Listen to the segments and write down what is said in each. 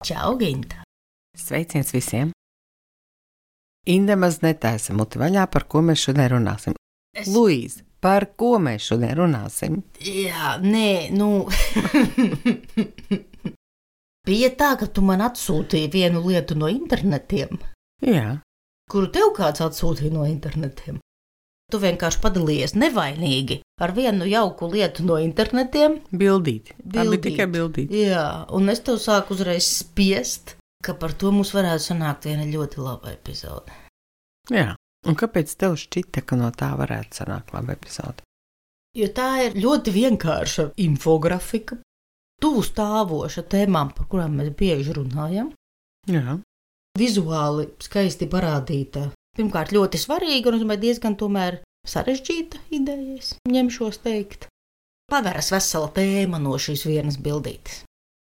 Čau, Ginta! Sveiciens visiem! Inde maz netaisa muti vaļā, par ko mēs šodien runāsim. Luīze, par ko mēs šodien runāsim? Jā, Bija tā, ka tu man atsūtīji vienu lietu no internetiem. Jā. Kuru tev kāds atsūtīja no internetiem? Tu vienkārši padalījies nevainīgi ar vienu jauku lietu no internetiem. Bildīti. Tā bija tikai bildīti. Jā, un es tev sāku uzreiz spiest, ka par to mums varētu sanākt viena ļoti laba epizode. Jā, un kāpēc tev šķita, ka no tā varētu sanākt laba epizode? Jo tā ir ļoti vienkārša infografika, tuvu stāvoša tēmām, par kurām mēs bieži runājam. Jā. Vizuāli skaisti parādīta. Pirmkārt, ļoti svarīga un diezgan tomēr sarežģīta ideja, es ņemšos teikt. Paveras vesela tēma no šīs vienas bildītes,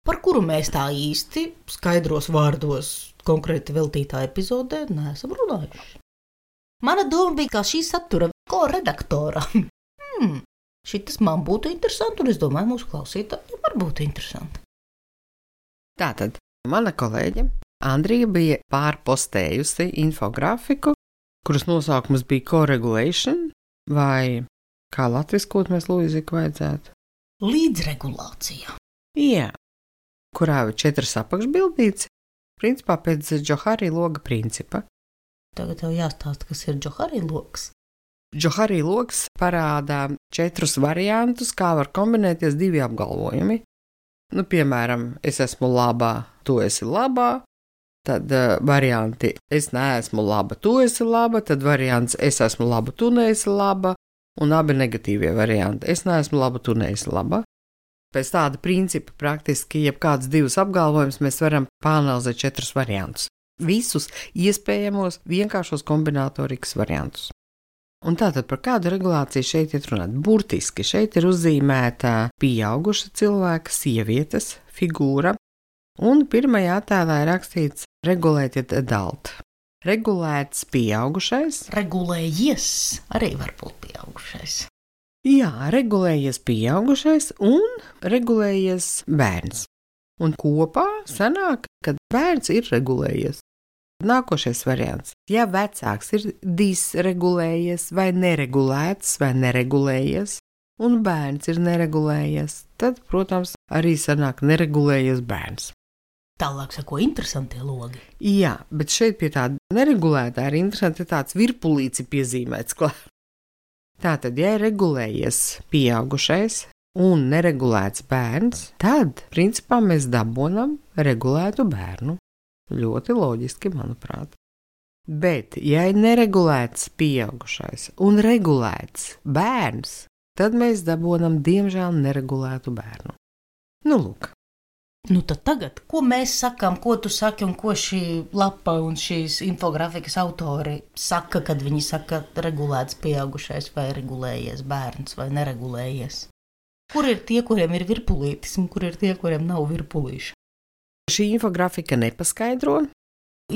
par kuru mēs tā īsti skaidros vārdos konkrēti veltītā epizodē neesam runājuši. Mana doma bija, kā šī satura ko-redaktora. Šitas man būtu interesanti, un es domāju, mūsu klausītājiem var būt interesanti. Tātad, mana kolēģe Andrija bija pārpostējusi infografiku, kuras nosaukums bija co-regulation, vai kā latviskot mēs Luīziku vajadzētu? Līdzregulācija. Jā, kurā ir 4 apakšbildītes, principā pēc Džohari loga principa. Tagad tev jāstāsta, kas ir Džohari logs. Džohari logs parādā 4 variantus, kā var kombinēties 2 apgalvojumi. Piemēram, es esmu labā, tu esi labā. Tad varianti es neesmu laba, tu esi laba, tad variants es esmu laba, tu neesi laba, un abi negatīvie varianti es neesmu laba, tu neesi laba. Pēc tāda principa praktiski jebkāds 2 apgalvojumus mēs varam pāanalizēt 4 variantus. Visus iespējamos vienkāršos kombinatorikas variantus. Un tātad par kādu regulāciju šeit ir runāt? Burtiski šeit ir uzzīmēta pieauguša cilvēka, sievietes figūra, un pirmajā attēlā ir rakstīts regulējiet adult. Regulēts pieaugušais. Regulējies arī var būt pieaugušais. Jā, regulējies pieaugušais un regulējies bērns. Un kopā sanāk, ka bērns ir regulējies. Nākošais variants. Ja vecāks ir disregulējies vai neregulēts vai neregulējies, un bērns ir neregulējies, tad, protams, arī sanāk neregulējies bērns. Tālāk sako interesantie logi. Jā, bet šeit pie tāda neregulētā ir interesanti tāds virpulīci piezīmēts klāt. Tātad, ja ir regulējies pieaugušais un neregulēts bērns, tad, principā, mēs dabonam regulētu bērnu. Ļoti loģiski, manuprāt. Bet, ja ir neregulēts pieaugušais un regulēts bērns, tad mēs dabonam, diemžēl, neregulētu bērnu. Lūk. Tad tagad, ko mēs sakām, ko tu saki un ko šī lapa un šīs infografikas autori saka, kad viņi saka regulēts pieaugušais vai regulējies bērns vai neregulējies? Kur ir tie, kuriem ir virpulītis un kur ir tie, kuriem nav virpulīša? Šī infografika nepaskaidro.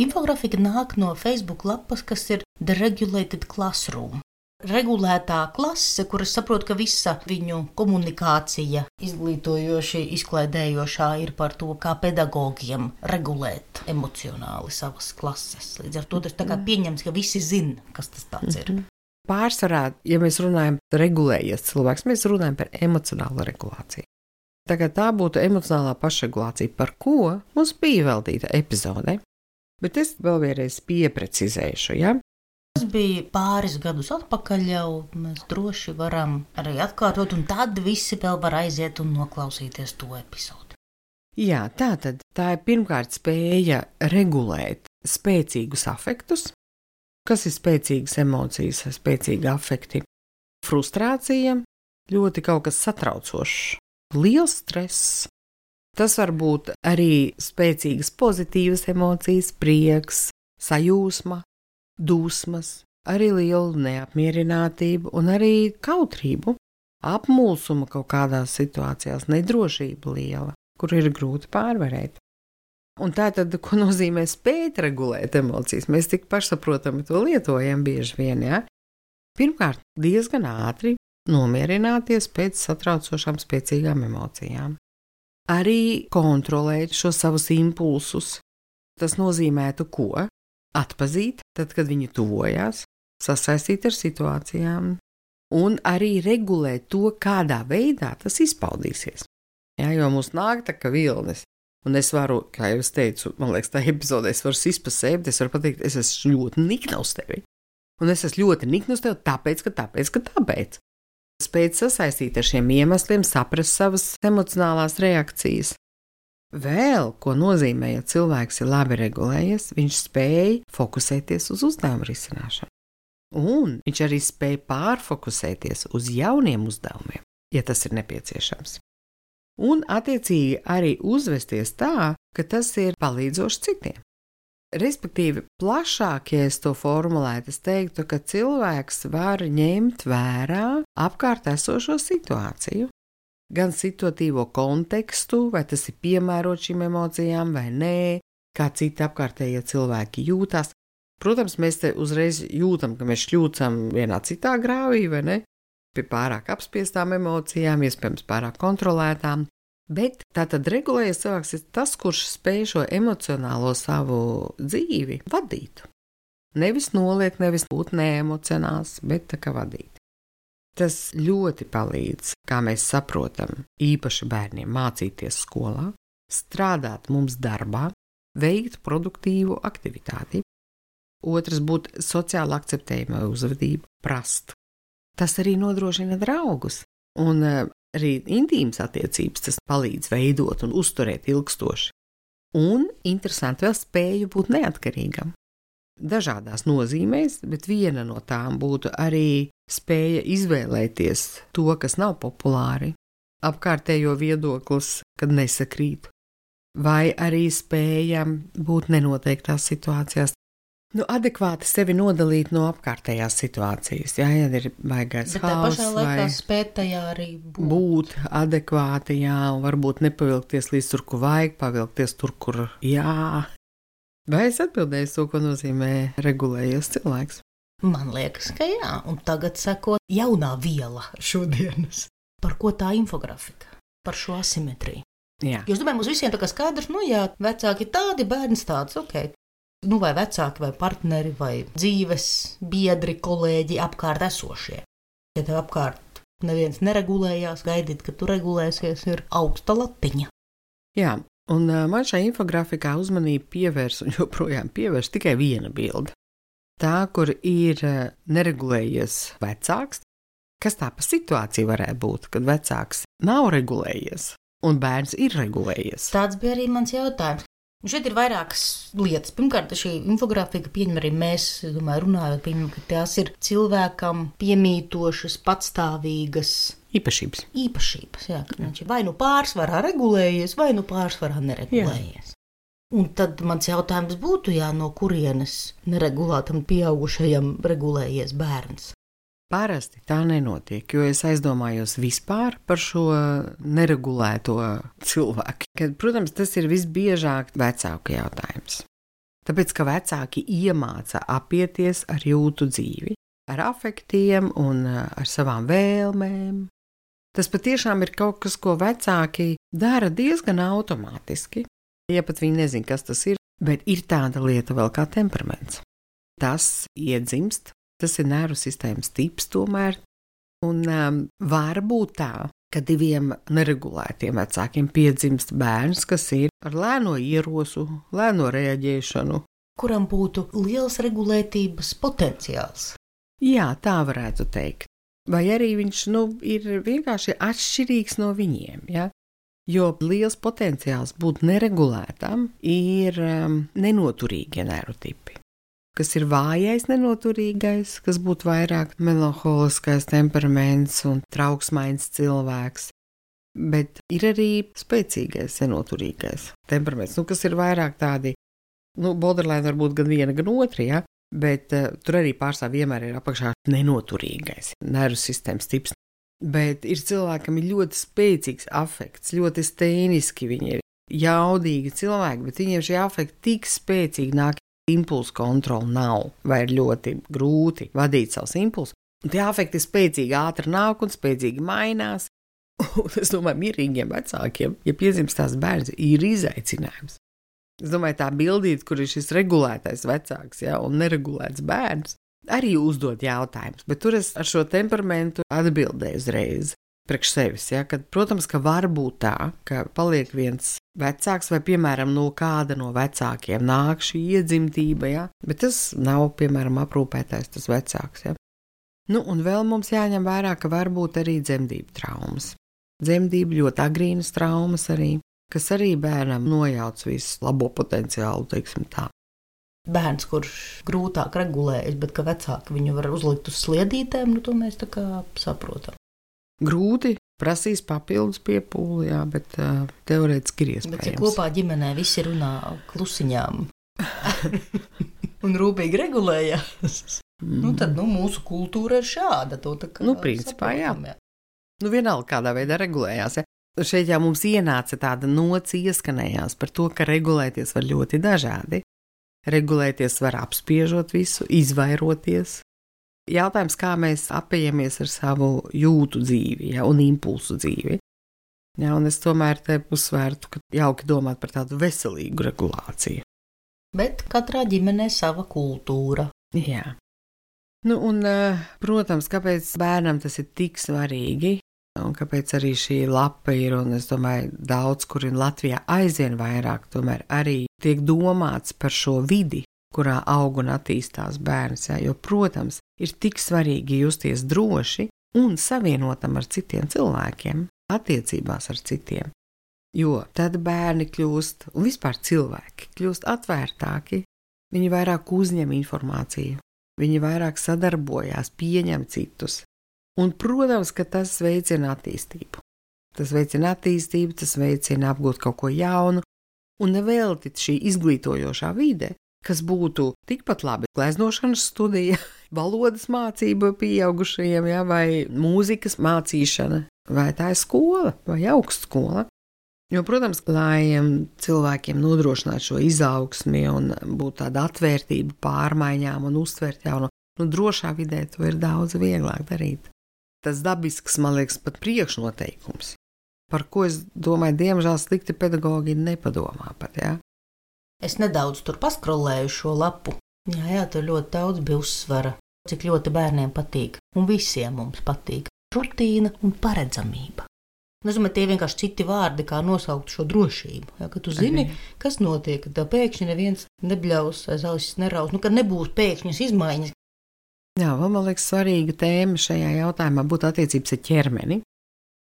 Infografika nāk no Facebook lapas, kas ir The Regulated Classroom. Regulētā klase, kuras saprot, ka visa viņu komunikācija izglītojoši, izklaidējošā ir par to, kā pedagogiem regulēt emocionāli savas klases. Līdz ar to tas tā kā pieņems, ka visi zina, kas tas tāds ir. Pārsvarā, ja mēs runājam par regulējies cilvēks, mēs runājam par emocionālu regulāciju. Tagad tā būtu emocionālā pašregulācija, par ko mums bija veltīta epizode, bet es vēl vienreiz pieprecizēšu, ja? Tas bija pāris gadus atpakaļ jau, mēs droši varam arī atkārtot, un tad visi vēl var aiziet un noklausīties to epizodi. Jā, tā ir pirmkārt spēja regulēt spēcīgus afektus. Kas ir spēcīgas emocijas, spēcīgi afekti? Frustrācija, ļoti kaut kas satraucošs, liels stress. Tas var būt arī spēcīgas pozitīvas emocijas, prieks, sajūsma, dusmas, arī liela neapmierinātība un arī kautrību, apmulsuma kaut kādās situācijās, nedrošība liela, kur ir grūti pārvarēt. Un tā tad, ko nozīmē spēt regulēt emocijas, mēs tik pašsaprotami to lietojam bieži vien, ja? Pirmkārt, diezgan ātri nomierināties pēc satraucošām spēcīgām emocijām. arī kontrolēt šo savus impulsus. Tas nozīmētu ko? Atpazīt, tad, kad viņi tuvojās, sasaistīt ar situācijām un arī regulēt to, kādā veidā tas izpaudīsies. Jā, jo mums nāk tā kā vilnis. Un es varu, kā jau es teicu, man liekas, tā epizodē es varu sist pa sevi, es varu pateikt, es esmu ļoti nikna uz tevi. Un es esmu ļoti nikna uz tevi tāpēc. Spēt sasaistīt ar šiem iemesliem, saprast savas emocionālās reakcijas. Vēl, ko nozīmē, ja cilvēks ir labi regulējies, viņš spēj fokusēties uz uzdevumu risināšanu. Un viņš arī spēj pārfokusēties uz jauniem uzdevumiem, ja tas ir nepieciešams. Un, attiecīgi, arī uzvesties tā, ka tas ir palīdzoši citiem. Respektīvi, plašāk, ja es to formulētu, es teiktu, ka cilvēks var ņemt vērā apkārt esošo situāciju, gan situatīvo kontekstu, vai tas ir piemērots šīm emocijām vai nē, kā citi apkārtējie cilvēki jūtās. Protams, mēs te uzreiz jūtam, ka mēs šļūcam vienā citā grāvī, vai ne? Pie pārāk apspiestām emocijām, iespējams pārāk kontrolētām, bet tātad regulējies cilvēks ir tas, kurš spēj šo emocionālo savu dzīvi vadīt. Nevis noliekt, nevis būt neemocionāls, bet tā kā vadīt. Tas ļoti palīdz, kā mēs saprotam, īpaši bērniem mācīties skolā, strādāt mums darbā, veikt produktīvu aktivitāti. Otrs būt sociāli akceptējama uzvedība, prast. Tas arī nodrošina draugus, un arī intīmas attiecības tas palīdz veidot un uzturēt ilgstoši. Un, interesanti, vēl spēju būt neatkarīgam. Dažādās nozīmēs, bet viena no tām būtu arī spēja izvēlēties to, kas nav populāri, apkārtējo viedoklis, kad nesakrīt, vai arī spēja būt nenoteiktās situācijās. Adekvāti sevi nodalīt no apkārtējās situācijas. Jā, ja ir baigais hauss, bet tā pašā laikā spēt tajā arī būt adekvāti, jā, un varbūt nepavilkties līdz tur, kur vajag, pavilkties tur, kur jā. Vai es atbildēju to, ko nozīmē regulējies cilvēks? Man liekas, ka jā, un tagad seko jaunā viela šodienas. Par ko tā infografika? Par šo asimetriju. Jā. Jo es domāju, mums visiem tā kā skaidrs, jā, vecāki tādi, bērns tāds, ok. Vai vecāki, vai partneri, vai dzīves biedri, kolēģi apkārt esošie. Ja tev apkārt neviens neregulējās, gaidīt, ka tu regulēsies, ir augsta latiņa. Jā, un man šajā infografikā uzmanību pievērs un joprojām pievērš tikai viena bilde. Tā, kur ir neregulējies vecāks, kas tā pa situāciju varētu būt, kad vecāks nav regulējies un bērns ir regulējies. Tāds bija arī mans jautājums. Un šeit ir vairākas lietas. Pirmkārt, šī infografika pieņem arī mēs, domāju, runājot, pieņem, ka tās ir cilvēkam piemītošas, patstāvīgas īpašības. Jā, ka viņš ir vai nu pārsvarā regulējies, vai nu pārsvarā neregulējies. Jā. Un tad mans jautājums būtu, no kurienes neregulētam pieaugušajam regulējies bērns. Parasti tā nenotiek, jo es aizdomājos vispār par šo neregulēto cilvēku. Kad, protams, tas ir visbiežāk vecāku jautājums. Tāpēc, ka vecāki iemāca apieties ar jūtu dzīvi, ar afektiem un ar savām vēlmēm. Tas patiešām ir kaut kas, ko vecāki dara diezgan automātiski. Ja pat viņi nezin, kas tas ir, bet ir tāda lieta vēl kā temperaments. Tas iedzimst. Tas ir nervu sistēmas tips tomēr, un var būt tā, ka diviem neregulētiem vecākiem piedzimst bērns, kas ir ar lēno ierosu, lēno reaģēšanu. Kuram būtu liels regulētības potenciāls. Jā, tā varētu teikt. Vai arī viņš ir vienkārši atšķirīgs no viņiem, ja? Jo liels potenciāls būt neregulētam ir nenoturīgie nervu tipi. Kas ir vājais nenoturīgais, kas būtu vairāk melanholiskais temperaments un trauksmains cilvēks. Bet ir arī spēcīgais nenoturīgais temperaments, kas ir vairāk tādi, borderline var būt gan viena, gan otra, ja? Bet tur arī pārstāv vienmēr ir apakšā nenoturīgais nervu sistēmas tips. Bet ir cilvēkam ir ļoti spēcīgs afekts, ļoti stēniski, viņi ir jaudīgi cilvēki, bet viņiem šie afekti tik spēcīgi nāk. Impulsu kontroli nav, vai ir ļoti grūti vadīt savus impulsus. Tie afekti spēcīgi ātri nāk un spēcīgi mainās. Un es domāju, mierīgiem vecākiem, ja piedzimstās bērns, ir izaicinājums. Es domāju, tā bildīt, kur ir šis regulētais vecāks, ja, un neregulēts bērns, arī uzdod jautājumus, bet tur es ar šo temperamentu atbildēju uzreiz priekš sevis, ja, kad, protams, ka var būt tā, ka paliek viens vecāks vai, piemēram, no kāda no vecākiem nāk šī iedzimtība, ja, bet tas nav, piemēram, aprūpētais tas vecāks, ja. Nu, un vēl mums jāņem vērā, ka var būt arī dzemdību traumas. Dzemdību ļoti agrīnas traumas arī, kas arī bērnam nojauc visu labo potenciālu, teiksim tā. Bērns, kurš grūtāk regulējas, bet ka vecāki viņu var uzlikt uz sliedītēm, nu to mēs tā kā saprotam. Grūti, prasīs papildus piepūli, jā, bet teorētiski ir iespējams. Bet ja kopā ģimenē visi runā klusiņām un rūpīgi regulējās, nu tad mūsu kultūra ir šāda. To tā kā principā saprotam, jā. Vienalga kādā veidā regulējās, ja. Šeit jau mums ienāca tāda nots ieskanējās par to, ka regulēties var ļoti dažādi. Regulēties var apspiežot visu, izvairoties. Jautājums, kā mēs apējamies ar savu jūtu dzīvi, ja, un impulsu dzīvi. Ja, un es tomēr te uzsvērtu, ka jauki domāt par tādu veselīgu regulāciju. Bet katrā ģimenē sava kultūra. Jā. Nu, un, protams, kāpēc bērnam tas ir tik svarīgi, un kāpēc arī šī lapa ir, un es domāju, daudz, kur ir Latvijā aizvien vairāk, tomēr arī tiek domāts par šo vidi, kurā aug un attīstās bērns, ja, jo, protams, ir tik svarīgi justies droši un savienotam ar citiem cilvēkiem, attiecībās ar citiem, jo tad bērni kļūst, un vispār cilvēki kļūst atvērtāki, viņi vairāk uzņem informāciju, viņi vairāk sadarbojās, pieņem citus. Un, protams, ka tas veicina attīstību. Tas veicina attīstību, tas veicina apgūt kaut ko jaunu, un nevelti šī izglītojošā vide, kas būtu tikpat labi gleznošanas studija, valodas mācība pieaugušajiem, ja, vai mūzikas mācīšana, vai tā ir skola, vai augstskola. Jo, protams, lai cilvēkiem nodrošinātu šo izaugsmi un būtu tāda atvērtība pārmaiņām un uztvert jaunu, drošā vidē to ir daudz vieglāk darīt. Tas dabisks, man liekas, pat priekšnoteikums, par ko es domāju, diemžēl slikti pedagogi nepadomā pat, jā. Es nedaudz tur paskrolēju šo lapu. Jā, tur ļoti daudz bija uzsvara, cik ļoti bērniem patīk, un visiem mums patīk rutīna un paredzamība. Es domāju, tie vienkārši citi vārdi, kā nosaukt šo drošību, ja, ka tu zini, kas notiek, ka pēkšņi neviens nebļaus, aiz ausis neraus, ka nebūs pēkšņas izmaiņas. Jā, vēl man liekas svarīga tēma šajā jautājumā būtu attiecības ar ķermeni,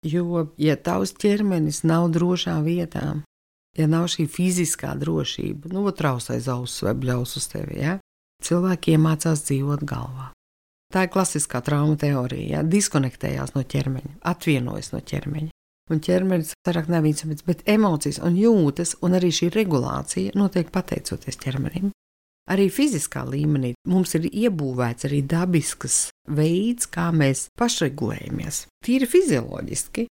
jo, ja tavs ķermenis nav drošā vietā, ja nav šī fiziskā drošība, traus aiz ausis vai bļaus uz tevi, ja, cilvēki iemācās dzīvot galvā. Tā ir klasiskā trauma teorija, ja, diskonektējās no ķermeņa, atvienojas no ķermeņa. Un ķermenis vairāk nav vicamīts, bet emocijas un jūtas un arī šī regulācija notiek pateicoties ķermenim. Arī fiziskā līmenī mums ir iebūvēts arī dabisks veids, kā mēs pašregulējamies. Tīri fizioloģiski,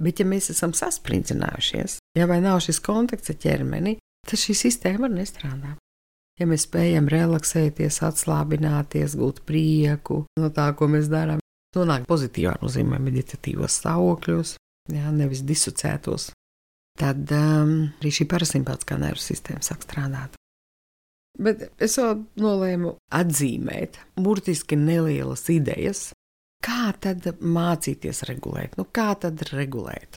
bet ja mēs esam sasprinddzinājušies, ja vai nav šis kontakts ar ķermeni, tad šī sistēma var nestrādāt. Ja mēs spējam relaksēties, atslābināties, gūt prieku no tā, ko mēs darām, nonāk pozitīvā nozīmē meditatīvos stāvokļos, jā, nevis disocētos, tad arī šī parasimpātiskā nervu sistēma sāk strādāt. Bet es vēl nolēmu atzīmēt burtiski nelielas idejas, kā tad mācīties regulēt, kā tad regulēt.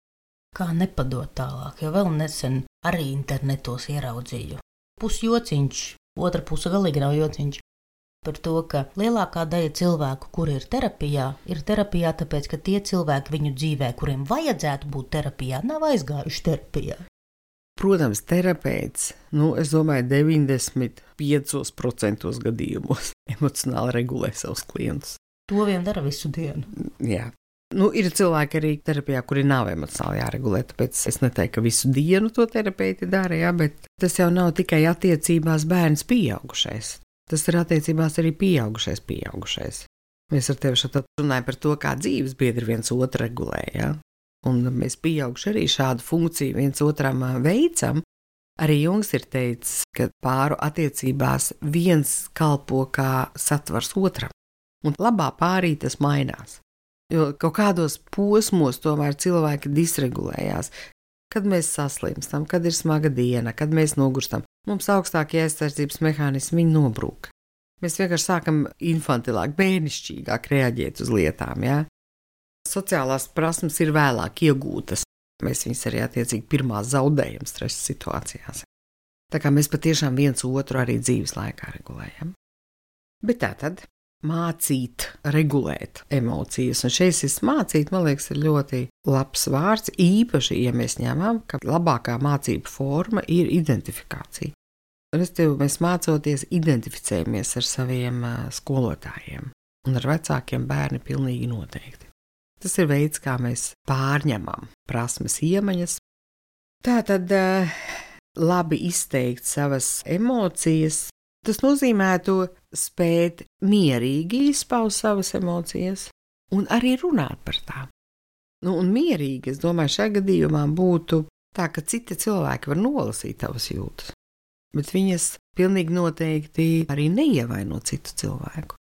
Kā nepadot tālāk, jo vēl nesen arī internetos ieraudzīju. Pusjociņš, otra puse galīgi nav jociņš, par to, ka lielākā daļa cilvēku, kuri ir terapijā, tāpēc, ka tie cilvēki viņu dzīvē, kuriem vajadzētu būt terapijā, nav aizgājuši terapijā. Protams, terapeits, es domāju, 95% gadījumos emocionāli regulē savus klientus. To vien dara visu dienu. Jā. Ir cilvēki arī terapijā, kuri nav emocionāli jāregulē, tāpēc es neteiktu, ka visu dienu to terapeiti dara, jā, bet tas jau nav tikai attiecībās bērns pieaugušais. Tas ir attiecībās arī pieaugušais. Mēs ar tevi šeit runājam par to, kā dzīves biedri viens otru regulē, jā. Un mēs pieauguši arī šādu funkciju viens otram veicam. Arī Jungs ir teicis, ka pāru attiecībās viens kalpo kā satvars otram, un labā pārī tas mainās. Jo kaut kādos posmos tomēr cilvēki disregulējās. Kad mēs saslimstam, kad ir smaga diena, kad mēs nogurstam, mums augstākie aizsardzības mehānismi nobrūk. Mēs vienkārši sākam infantilāk, bērnišķīgāk reaģēt uz lietām, ja? Sociālās prasmes ir vēlāk iegūtas. Mēs viņus arī attiecīgi pirmās zaudējam stresa situācijās. Tā kā mēs patiešām viens otru arī dzīves laikā regulējam. Bet tātad mācīt, regulēt emocijas. Un šeit šis mācīt, man liekas, ir ļoti labs vārds, īpaši, ja mēs ņemam, ka labākā mācība forma ir identifikācija. Un mēs mācoties identificējamies ar saviem skolotājiem un ar vecākiem bērni pilnīgi noteikti. Tas ir veids, kā mēs pārņemam prasmes iemaņas. Tātad labi izteikt savas emocijas, tas nozīmētu spēt mierīgi izpaust savas emocijas un arī runāt par tām. Un mierīgi, es domāju, šajā gadījumā būtu tā, ka citi cilvēki var nolasīt tavas jūtas, bet viņas pilnīgi noteikti arī neievaino citu cilvēku.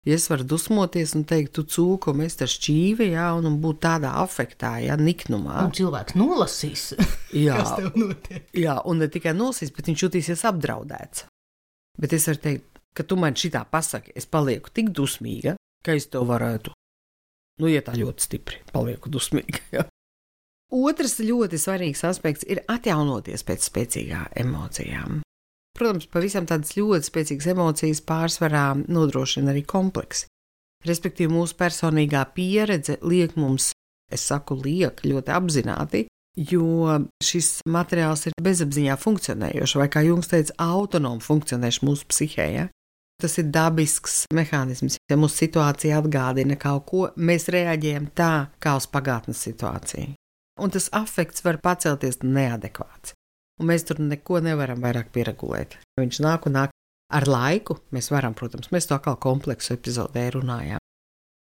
Ja es varu dusmoties un teikt, tu cūko, mēs tā šķīvi, jā, un būt tādā afektā, jā, niknumā. Un cilvēks nolasīs, jā, kas tev notiek. Jā, un ne tikai nolasīs, bet viņš jutīsies apdraudēts. Bet es varu teikt, ka tu man šitā pasaki, es palieku tik dusmīga, ka es tev varētu, ja tā ļoti stipri, palieku dusmīga, jā. Otrs ļoti svarīgs aspekts ir atjaunoties pēc spēcīgām emocijām. Protams, pavisam tādas ļoti spēcīgas emocijas pārsvarā nodrošina arī kompleksi. Respektīvi, mūsu personīgā pieredze liek mums, es saku liek, ļoti apzināti, jo šis materiāls ir bezapziņā funkcionējošs, vai kā Jungs teica, autonomi funkcionējošs mūsu psihē. Ja? Tas ir dabisks mehānisms. Ja mūsu situācija atgādina kaut ko, mēs reaģējam tā, kā uz pagātnes situāciju. Un tas afekts var pacelties neadekvāts. Un mēs tur neko nevaram vairāk pieregulēt. Viņš nāk un nāk ar laiku. Mēs varam, protams, mēs to atkal kompleksu epizodē runājām.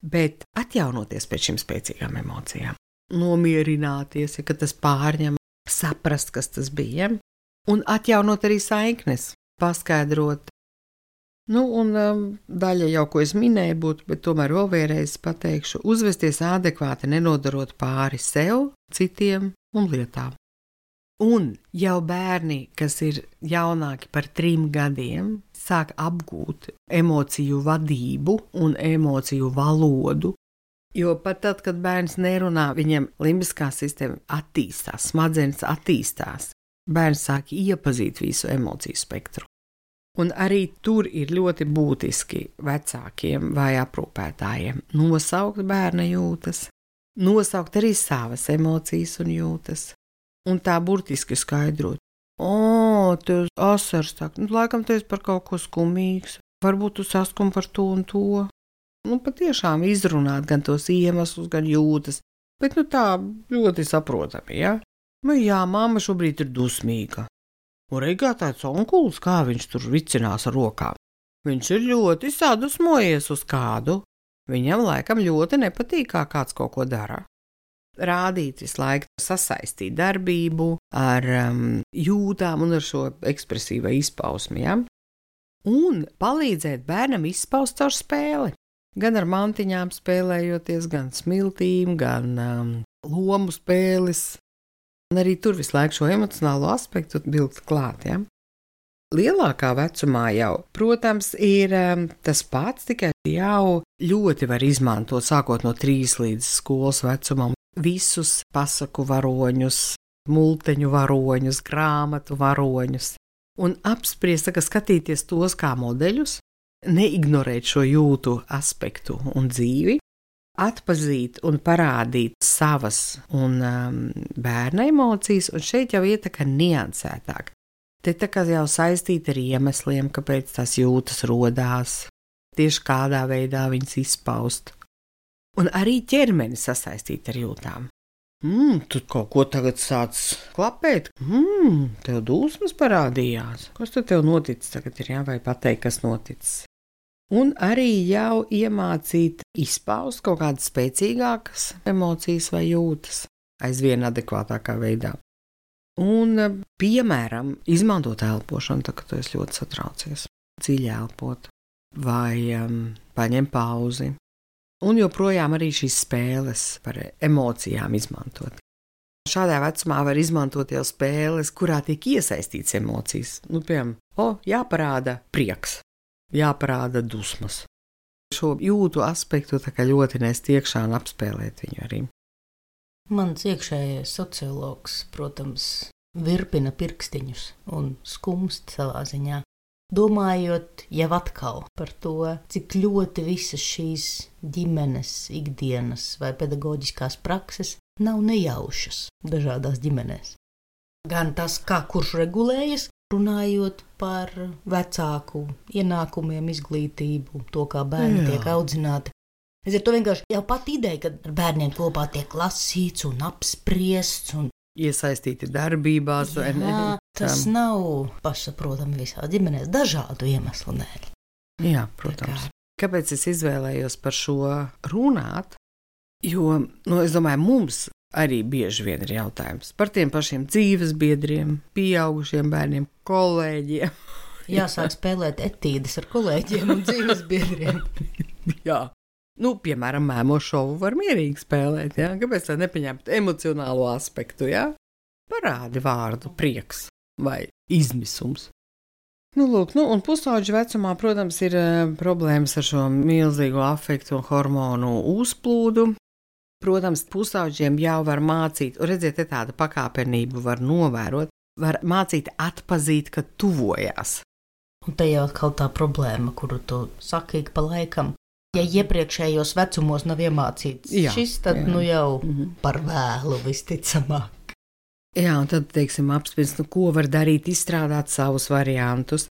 Bet atjaunoties pēc šīm spēcīgām emocijām, nomierināties, ja tas pārņem, saprast, kas tas bija, un atjaunot arī saiknes, paskaidrot. Un daļa jau, ko es minēju, būtu, bet tomēr vēl vēlreiz pateikšu, uzvesties adekvāti, nenodarot pāri sev, citiem un lietām. Un jau bērni, kas ir jaunāki par 3 gadiem, sāk apgūt emociju vadību un emociju valodu, jo pat tad, kad bērns nerunā, viņam limbiskā sistēma attīstās, smadzenes attīstās, bērns sāk iepazīt visu emociju spektru. Un arī tur ir ļoti būtiski vecākiem vai aprūpētājiem nosaukt bērna jūtas, nosaukt arī savas emocijas un jūtas. Un tā burtiski skaidrot. Tev asars tā, laikam tu esi par kaut ko skumīgs, varbūt tu saskumi par to un to. Patiešām izrunāt gan tos iemeslus, gan jūtas, bet tā ļoti saprotami, ja? Jā, mamma šobrīd ir dusmīga. Un reigā tāds onkulis, kā viņš tur vicinās ar rokām. Viņš ir ļoti sadusmojies uz kādu. Viņam laikam ļoti nepatīk, kā kāds kaut ko dara. Rādīt visu laiku, sasaistīt darbību ar jūtām un ar šo ekspresīvo izpausmi, ja? Un palīdzēt bērnam izpaust caur spēli. Gan ar mantiņām spēlējoties, gan smiltīm, gan lomu spēles. Un arī tur visu laiku šo emocionālo aspektu vilkt klāt, ja? Lielākā vecumā jau, protams, ir tas pats, tikai jau ļoti var izmantot, sākot no 3 līdz skolas vecumam, visus pasaku varoņus, multeņu varoņus, grāmatu varoņus, un apspriest, skatīties tos kā modeļus, neignorēt šo jūtu aspektu un dzīvi, atpazīt un parādīt savas un bērna emocijas, un šeit jau iet tā kā niansētāk. Te tā kā jau saistīta ar iemesliem, kāpēc tās jūtas rodās, tieši kādā veidā viņas izpaust. Un arī ķermeni sasaistīt ar jūtām. Tu kaut ko tagad sāc klapēt? Tev dusmas parādījās. Kas tad tev noticis tagad ir, jā, vai pateikt, kas noticis? Un arī jau iemācīt izpaust kaut kādas spēcīgākas emocijas vai jūtas aizvien adekvātākā veidā. Un, piemēram, izmantot elpošanu, tā, kad tu esi ļoti satraucies, dziļi elpot, vai paņem pauzi. Un joprojām arī šīs spēles par emocijām izmantot. Šādā vecumā var izmantot jau spēles, kurā tiek iesaistīts emocijas. Piemēram, jāparāda prieks, jāparāda dusmas. Šo jūtu aspektu tā kā ļoti nest iekšā un apspēlēt viņu arī. Mans iekšējais sociologs, protams, virpina pirkstiņus un skumst savā ziņā. Domājot jau atkal par to, cik ļoti visas šīs ģimenes, ikdienas vai pedagoģiskās prakses nav nejaušas dažādās ģimenēs. Gan tas, kā kurš regulējas, runājot par vecāku ienākumiem, izglītību, to, kā bērni tiek audzināti. Es ar to vienkārši jau pat ideja, ka ar bērniem kopā tiek lasīts un apspriests un iesaistīti darbībās. Jā, tas nav pašsaprotami visā ģimenēs dažādu iemeslu dēļ. Jā, protams. Kāpēc es izvēlējos par šo runāt? Jo, es domāju, mums arī bieži vien ir jautājums par tiem pašiem dzīves biedriem, pieaugušiem bērniem, kolēģiem. Jāsāk spēlēt etīdes ar kolēģiem un dzīves biedriem. Jā. Piemēram, mēmo šovu var mierīgi spēlēt, jā? Kāpēc tā nepaņemt emocionālo aspektu, jā? Parādi vārdu prieks vai izmisums. Un pusauģu vecumā, protams, ir problēmas ar šo milzīgo afektu un hormonu uzplūdu. Protams, pusauģiem jau var mācīt, redziet, tāda pakāpenību var novērot, var mācīt atpazīt, ka tuvojās. Un te jau atkal tā problēma, kuru tu saki ik pa laikam. Ja iepriekšējos vecumos nav iemācīts šis, tad jau par vēlu visticamāk. Jā, un tad, apspriest, ko var darīt, izstrādāt savus variantus.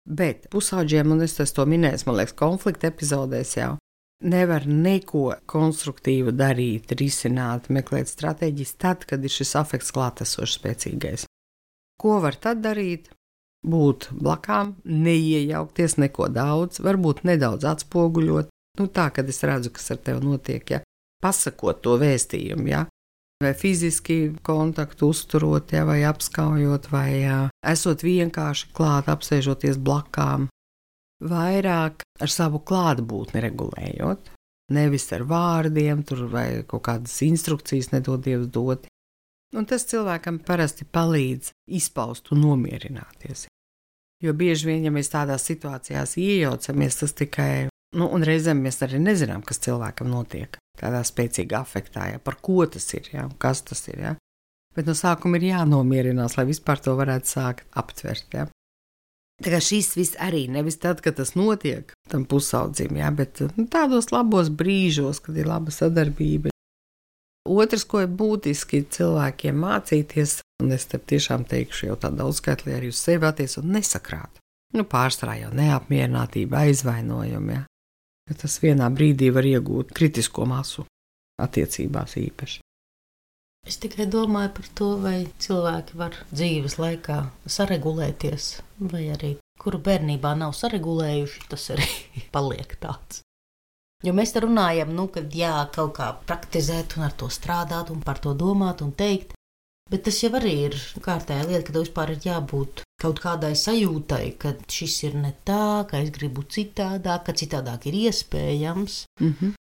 Bet pusauģiem, un es to minēju, man liekas, konflikta epizodēs jau, nevar neko konstruktīvu darīt, risināt, meklēt stratēģijas tad, kad ir šis afekts klātesošs spēcīgais. Ko var tad darīt? Būt blakām, neiejaukties neko daudz, varbūt nedaudz atspoguļot. Tā, kad es redzu, kas ar tevi notiek, ja, pasakot to vēstījumu, ja, vai fiziski kontaktu uzturot, ja, vai apskaujot, vai esot vienkārši klāt, apsēžoties blakām, vairāk ar savu klātbūtni regulējot, nevis ar vārdiem, vai kaut kādas instrukcijas nedod Dievs dot. Un tas cilvēkam parasti palīdz izpaust un nomierināties. Jo bieži vien, ja mēs tādās situācijās iejaucamies, tas tikai un reizēm mēs arī nezinām, kas cilvēkam notiek tādā spēcīgā afektā, ja, par ko tas ir, ja, kas tas ir. Ja. Bet no sākuma ir jānomierinās, lai vispār to varētu sākt aptvert. Ja. Tā kā šis viss arī nevis tad, kad tas notiek tam pusaudzim, ja, bet tādos labos brīžos, kad ir laba sadarbība. Otrs, ko ir būtiski cilvēkiem mācīties, un es te tiešām teikšu jau tā daudzskaitlī arī uz sevi attiecot, nesakrāt. Pārsvarā jau neapmierinātība, aizvainojumi, ja. Tas vienā brīdī var iegūt kritisko masu attiecībās īpaši. Es tikai domāju par to, vai cilvēki var dzīves laikā saregulēties, vai arī kuru bērnībā nav saregulējuši, tas arī paliek tāds. Jo mēs te runājam, kad kaut kā praktizēt un ar to strādāt un par to domāt un teikt, bet tas jau arī ir kārtēja lieta, ka tev vispār ir jābūt kaut kādai sajūtai, ka šis ir ne tā, ka es gribu citādāk, ka citādāk ir iespējams,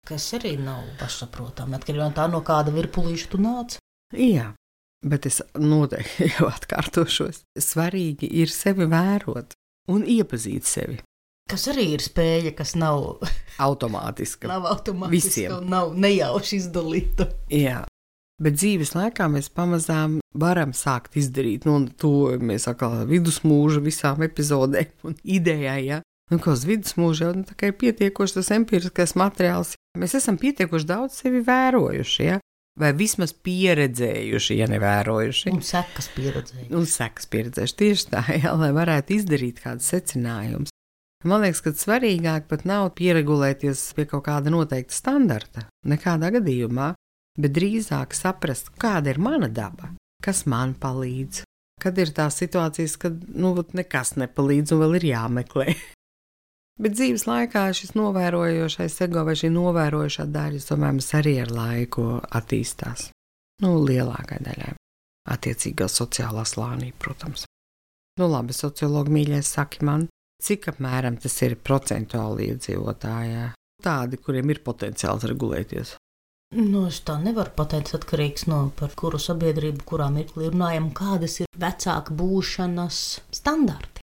kas arī nav pašsaprotami, atkarībā no kāda virpulīša tu nāc. Jā, bet es noteikti jau atkārtošos. Svarīgi ir sevi vērot un iepazīt sevi. Kas arī ir spēja, kas nav automātiska. Nav automātiska un nav nejauši izdalīta. Jā. Bet dzīves laikā mēs pamazām varam sākt izdarīt, to mēs atkal vidusmūža visām epizodēm un idejai, ja. Kā uz vidusmūža jau tā kā ir pietiekoši tas empiriskais materiāls. Mēs esam pietiekoši daudz sevi vērojuši, ja, vai vismaz pieredzējuši, ja nevērojuši. Un sekas pieredzējuši. Tieši tā, ja, lai varētu izdarīt kādus secinājumus. Man liekas, ka svarīgāk pat nav pieregulēties pie kaut kāda noteikta standarta, nekādā gadījumā, bet drīzāk saprast, kāda ir mana daba, kas man palīdz, kad ir tās situācijas, kad nekas nepalīdz un vēl ir jāmeklē. Bet dzīves laikā šis novērojošais ego vai šī novērojošā daļa, tomēr arī ar laiku attīstās. Lielākai daļai. Attiecīgā sociālā slānī, protams. Labi, sociologi mīļais saki man, cik apmēram tas ir procentuāli iedzīvotājā. tādi, kuriem ir potenciāls regulēties? Es tā nevaru pateikt, atkarīgs no par kuru sabiedrību, kurā mirklī runājam, kādas ir vecāka būšanas standarti.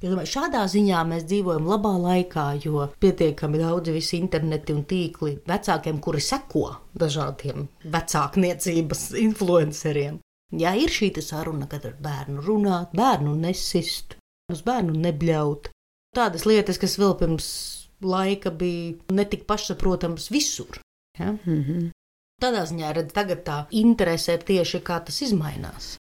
Es domāju, šādā ziņā mēs dzīvojam labā laikā, jo pietiekami daudzi visi interneti un tīkli vecākiem, kuri seko dažādiem vecākniecības influenceriem. Jā, ir šī saruna, kad ar bērnu runāt, bērnu nesist, uz bērnu nebļaut. Tādas lietas, kas vēl pirms laika bija netik pašsaprotams visur. Ja? Tādā ziņā, redz, tagad tā interese ir tieši kā tas izmainās.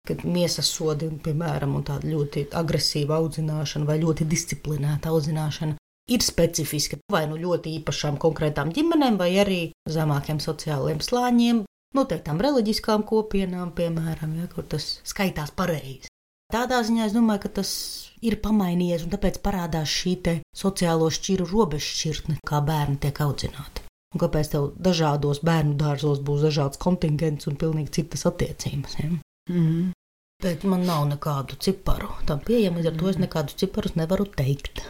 Kad miesas sodi, piemēram, un tāda ļoti agresīva audzināšana vai ļoti disciplinēta audzināšana ir specifiska vai nu ļoti īpašām konkrētām ģimenēm vai arī zemākiem sociāliem slāņiem, noteiktām reliģiskām kopienām, piemēram, ja, kur tas skaitās pareizi. Tādā ziņā es domāju, ka tas ir pamainījies un tāpēc parādās šī te sociālo šķiru robežšķirtne, kā bērni tiek audzināti. Un kāpēc tev dažādos bērnu dārzos būs dažāds kontingents un pilnīgi citas attiecības. Ja? Bet man nav nekādu ciparu tam pieejama, līdz ar to es nekādus ciparus nevaru teikt.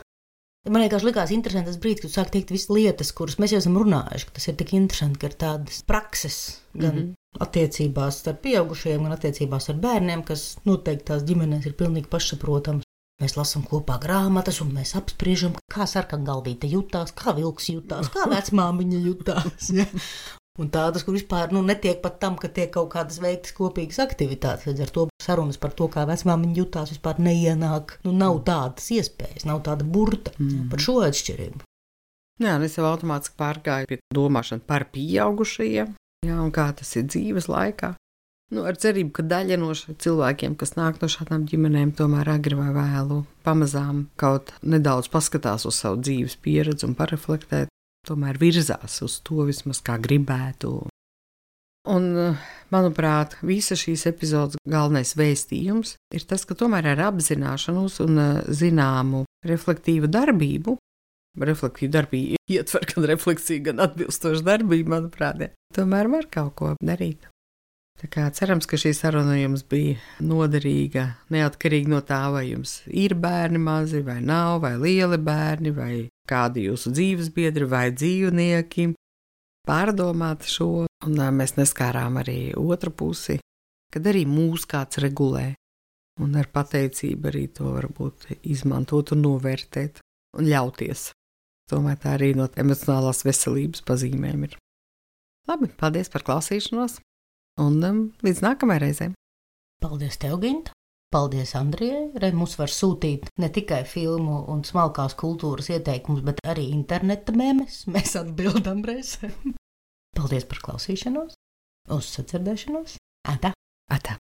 Man vienkārši likās interesanti tas brīdis, kad sāk teikt visas lietas, kuras mēs jau esam runājuši, ka tas ir tik interesanti, ka ir tādas prakses gan attiecībās ar pieaugušajiem, gan attiecībās ar bērniem, kas noteikti tās ģimenēs ir pilnīgi pašsaprotams. Mēs lasām kopā grāmatas un mēs apspriežam, kā sarkangalvīte jutās, kā vilks jutās, kā vecmāmiņa jutās. Ja? Un tādas, kur vispār netiek pat tam, ka tiek kaut kādas veiktas kopīgas aktivitātes. Līdz ar to sarunas par to, kā vecmāmiņa jutās, vispār neienāk. Nav tādas iespējas, nav tāda burta par šo atšķirību. Jā, es jau automātiski pārgāju pie domāšana par pieaugušajiem, jā, un kā tas ir dzīves laikā. Ar cerību, ka daļa no cilvēkiem, kas nāk no šādām ģimenēm, tomēr agri vai vēlu pamazām kaut nedaudz paskatās uz savu dzīves pieredzi un pareflektēt, tomēr virzās uz to vismaz kā gribētu. Un, manuprāt, visa šīs epizodes galvenais vēstījums ir tas, ka tomēr ar apzināšanos un zināmu reflektīvu darbību, reflektīvu darbību ietver gan refleksiju, gan atbilstošu darbību, manuprāt, tomēr var kaut ko darīt. Tā kā cerams, ka šī saruna jums bija noderīga, neatkarīgi no tā, vai jums ir bērni mazi, vai nav, vai lieli bērni, vai kādi jūsu dzīves biedri, vai dzīvnieki. Pārdomāt šo, un mēs neskārām arī otru pusi, kad arī mūs kāds regulē, un ar pateicību arī to varbūt izmantot un novērtēt un ļauties. Tomēr tā arī no emocionālās veselības pazīmēm ir. Labi, paldies par klausīšanos! Un līdz nākamajai reizei. Paldies tev, Ginta! Paldies Andrijai! Mums var sūtīt ne tikai filmu un smalkās kultūras ieteikumus, bet arī interneta memes. Mēs atbildam reizēm. Paldies par klausīšanos! Uz sadzirdēšanos! Atā! Atā!